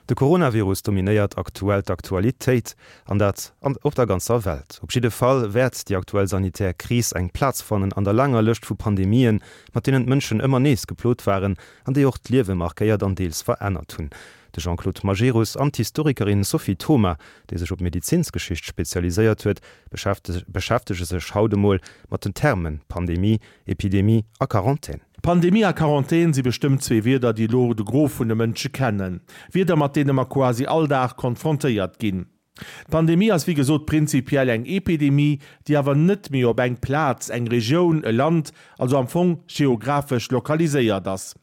De Coronavirus dominéiert aktuell d'Aktualitéit, an dat op der ganzer Welt. Op jidde Fall wäert déi aktuell sanitär Kris eng Plaz fannen an der laanger Lëscht vu Pandemien, mat deenen d'Mënschen ëmmer nees geplot waren an déi och d'Liewe markéiert an deels verännert hunn. De Jean-Claude Majerus an d'Historikerin Sophie Thoma, déi sech op Medizinsgeschicht spezialiséiert huet, beschäftege sech haut emol mat den Termen Pandemie, Epidemie a Quarantän. Pandemie a Quarantän si bestëmmt zwee Wierder, déi elo de Gros vun de Mënsche kennen. Wierder, mat deene mer quasi all Dag konfrontéiert ginn. D'Pandemie ass wéi gesot prinzipiell eng Epidemie, déi awer net méi op eng Plaz, eng Regioun, e Land, also am Fong geographesch lokaliséiert ass.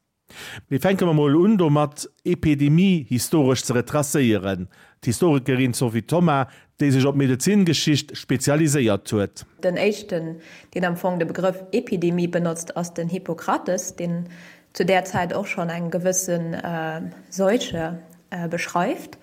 Mee fänke mer mol un domat, Epidemie historesch ze retracéieren. D'Historikerin Sophie Thoma, déi sech op d'Medezingeschicht spezialiséiert huet. Den éischten, deen am Fong de Begrëff Epidemie benotzt, ass den Hippokrates, deen zu där Zäit och schonn eng gewësse Seuche beschreift.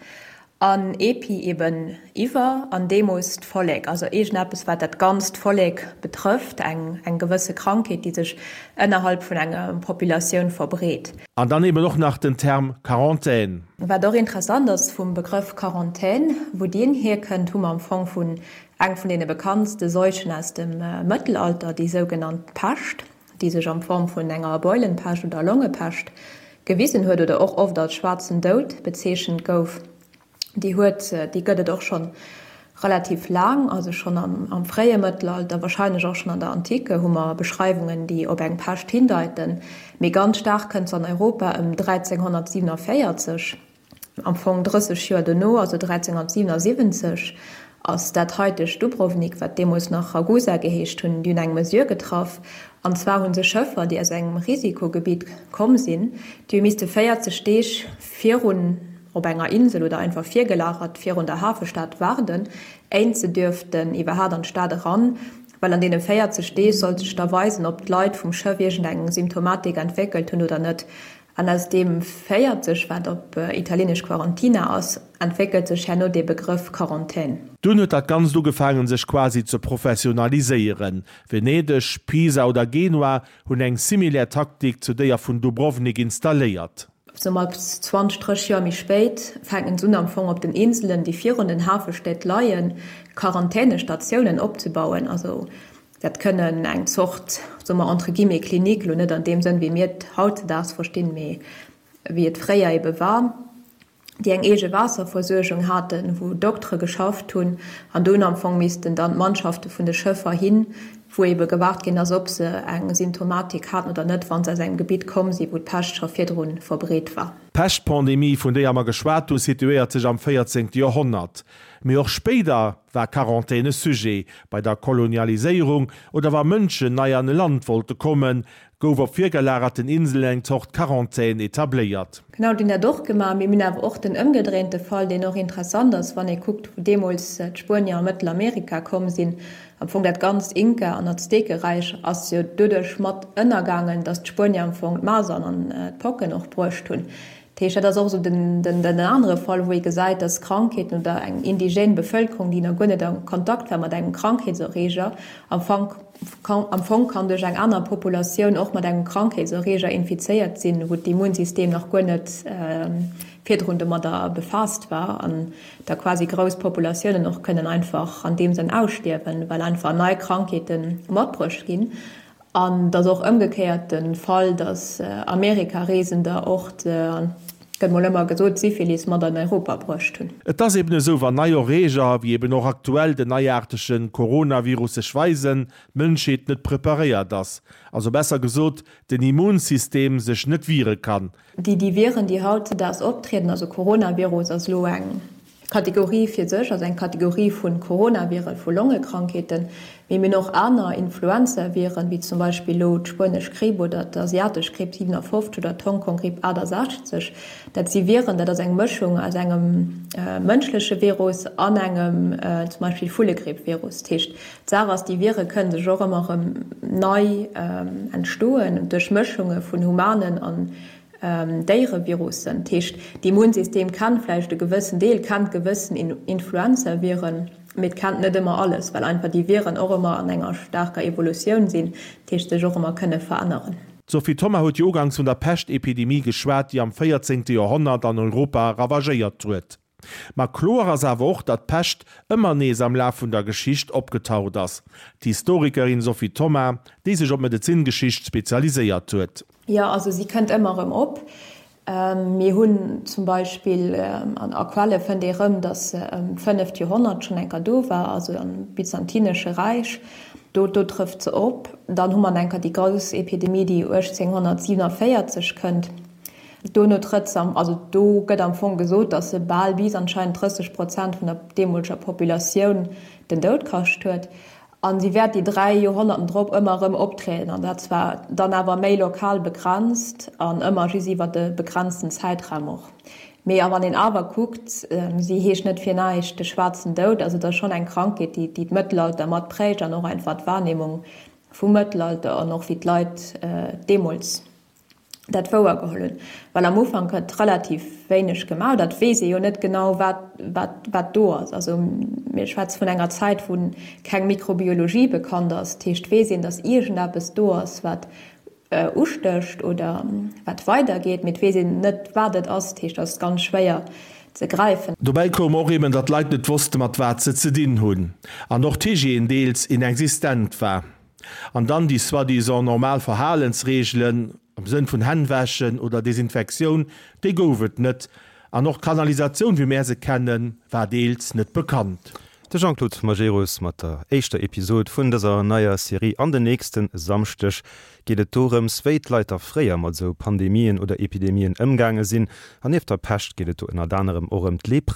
An epi eben iwwer an demos d'Vollek, also iergendeppes wat dat ganzt Vollek betrëfft, eng eng gewësse Krankheet, déi sech ënnerhalb vun enger Populatioun verbreet. An dann eben och nach den Term Quarantän. Wat och interessant ass vum Begrëff Quarantän, wou deen hierkënnt, hu mer am Fong vun eng vun deene bekanntste Seuchen aus dem Mëttelalter, déi sougenannt Pescht. déi sech an Form vun enger Beulenpescht oder Longepescht gewisen huet oder och oft als schwaarzen Doud bezeechent gouf, déi huet, déi gëtt et och schonn relativ laang, also schonn am fréie Mëttelalter, wahrscheinlech och schonn an der Antike hu mer Beschreiwungen, déi op eng Pescht hindeiten, mee ganz staark kënnt se an Europa ëm 1347. Am Fong 30 Joer dono, also 1377, ass dat haitegt Dubrovnik, wat deemools nach Ragusa geheescht hunn, déi hunn eng Mesure getraff. An zwar hu se Schëffer, déi aus engem Risikogebitt komm sinn, déi hu misste 40 Deeg virun op enger Insel oder einfach virgelagert virun der Hafestad waarden, éint se dürften iwwerhaat an d'Stad eran, well an deene 40 Deeg sollt sech da weisen, ob d'Leit vum Schëff iergendeng Symptomatik entwéckelt hunn oder net. An aus deem 40, wat op Italieenesch Quarantina ass, entwéckelt sech herno dee Begrëff Quarantän. Dunn huet dat Ganzt ugefaangen sech quasi ze professionaliséieren. Venedeg, Pisa oder Genua hunn eng similär Taktik zu déier vun Dubrovnik installéiert. Sou mat 20, 30 Joer méi spéit fänken se un am Fong op den Inselen, déi virun den Hafestäd leien, Quarantänestatiounen opzebauen. Also Dat kënnen eng Zort, soe mer entre guillemets, Klinik, elo net an deem Sënn, wéi mir et hautzedaags verstinn, mee wéi et fréier ebe war, déi eng eege Waasserversuergung haten, wou Doktere geschafft hunn an do hunn am Fong missten dann d'Mannschafte vun de Schëffer hin, wou ebe gewaart ginn ass, ob se eng Symptomatik haten oder net, wa se aus engem Gebitt komm sinn, wou d'Pescht scho virdru verbreet war. D'Peschtpandemie, vun déier mer geschwat hunn, situéiert sech am 14. Joerhonnert. Mee och spéider war Quarantän e Sujet. Bei der Kolonialiséierung oder wa Mënschen nei an e Land wollte kommen, gouf op virgelagerten Inselen eng Zort Quarantän etabléiert. Genau, déi hunn dat och gemaach. Mee mir hunn awer och den ëmgedréinte Fall, deen och interessant ass, wann ee kuckt, wou deemools d'Spuenier a Mëttelamerika komm sinn. Am Fong dat ganzt Inka an Aztekeräich ass jo doduerch mat ënnergaangen, datt d'Spuenier am Fong d'Masern an d'Pocken och bruecht hunn. Dat heescht, dat ass och esou den anere Fall, wou ee gesäit, dass Krankheeten oder eng indigène Bevëlkerung, déi nach guer net a Kontakt war mat engem Krankheetserreeger, am Fong am Fong kann duerch eng aner Populatioun och mat engem Krankheetserreeger infizéiert sinn, wou d'Immunsystem nach guer net virdrun domadder befaasst war an da quasi grouss Populatiounen och kënnen einfach an deem Sënn ausstierwen, well einfach nei Krankheete matbruecht ginn. An et ass och ëmgekéiert de Fall, datt Amerika-Reesender och, gëtt mol ëmmer gesot, d'Syphilis mat an Europa bruecht hunn. Et ass eben esou, wann nei Erreeger, wéi eben och aktuell den neiaartege Coronavirus sech weisen, d'Mënschheet net preparéiert ass, also besser gesot, den Immunsystem sech net wiere kann. Déi déi Viren, déi hautzedaags optrieden, also Coronavirus ass elo eng Kategorie fir sech, also eng Kategorie vu Coronaviren, vu Longekrankheeten, mee mir hunn och aner Influenzaviren, wéi zum Beispill elo d'spuenesch Gripp oder d'asiatesch Gripp 57 oder d'Hongkong-Gripp 68. Dat si Viren, dat ass eng Mëschung aus engem mënschleche Virus an engem zum Beispill Vullegripp-Virus. Dat heescht, d'Saach ass, déi Vire kënnen sech och ëmmer erëm nei entstoen duerch Mëschunge vun humanen an Déierevirussen. Dat heescht, d'Immunsystem kennt vläicht e gewëssen Deel, kennt gewëssen Influenzaviren, mee et kennt net ëmmer alles, well einfach déi Viren och ëmmer an enger staarker Evolutioun sinn, dat heescht sech och ëmmer kënne veränneren. D'Sophie Thoma huet jo ugangs vun der Peschtepidemie geschwat, déi am véierzéngte Joerhonnert an Europa ravagéiert huet. Ma kloer ass awer och, datt d'Pescht ëmmer nees am Laf vun der Geschicht opgetaucht ass. D'Historikerin Sophie Thoma, déi sech op d'Medezingeschicht spezialiséiert huet. Jo, also si kënnt ëmmer erëm op. Mir hunn zum Beispill an a Quelle fënnt ee rëm, datt se ëm d'fënneft Joerhonnert schonn eng Kéier do war, also am Byzantinesche Räich. Do do trëfft se op. Dann hu mer eng Kéier déi grouss Epidemie, déi 1847 kënnt. Dono trëtt se am, also do gëtt am Fong gesot, datt se bal bis anscheinend 30 Prozent vun der deemoleger Populatioun den Doud kascht huet. A si wäert déi 3 Joerhonnerten drop ëmmer erëm optrieden, an dat zwar dann awer méi lokal begrenzt an ëmmer just iwwer e begrenzten Zäitraum och. Mee a wann een awer kuckt, si heescht net fir näischt de schwaarzen Doud, also et ass schonn eng Krankheet, déi déi d'Mëttelalter mat prägt an och einfach d'Wahrnehmung vum Mëttelalter an och wéi d'Leit deemools dat wouer geholl hunn, well am Ufank gëtt relativ wéineg gemaach, dat weess ee jo net genau wat wat wat do ass. Also mir schwätze vun enger Zäit wou keng Mikrobiologie bekannt ass, dat heescht weess een, datt iergendeppes do ass wat ustécht oder wat weidergeet, mee et weess een net wat et ass, dat heescht dat ass ganz schwéier ze gräifen. Dobäi koum och eben, datt d'Leit net wosste mat wat se ze dinn hunn an och d'Hygiène deels inexistent war. An dann déi soi-disant normal Verhalensreegelen am Sënn vun Hänn wäschen oder Desinfektioun, déi gouf et net. An och d'Kanalisatioun, wéi mär se kennen, war deels net bekannt. De Jean-Claude Majerus mat der éischter Episod vun dëser neier Serie. An den nächste Samschdeg geet et dorëms, wéi d'Leit da fréier mat esou Pandemien oder Epidemien ëmgaange sinn. An nieft der Pescht geet et do ënnert anerem och ëm d'Lepra.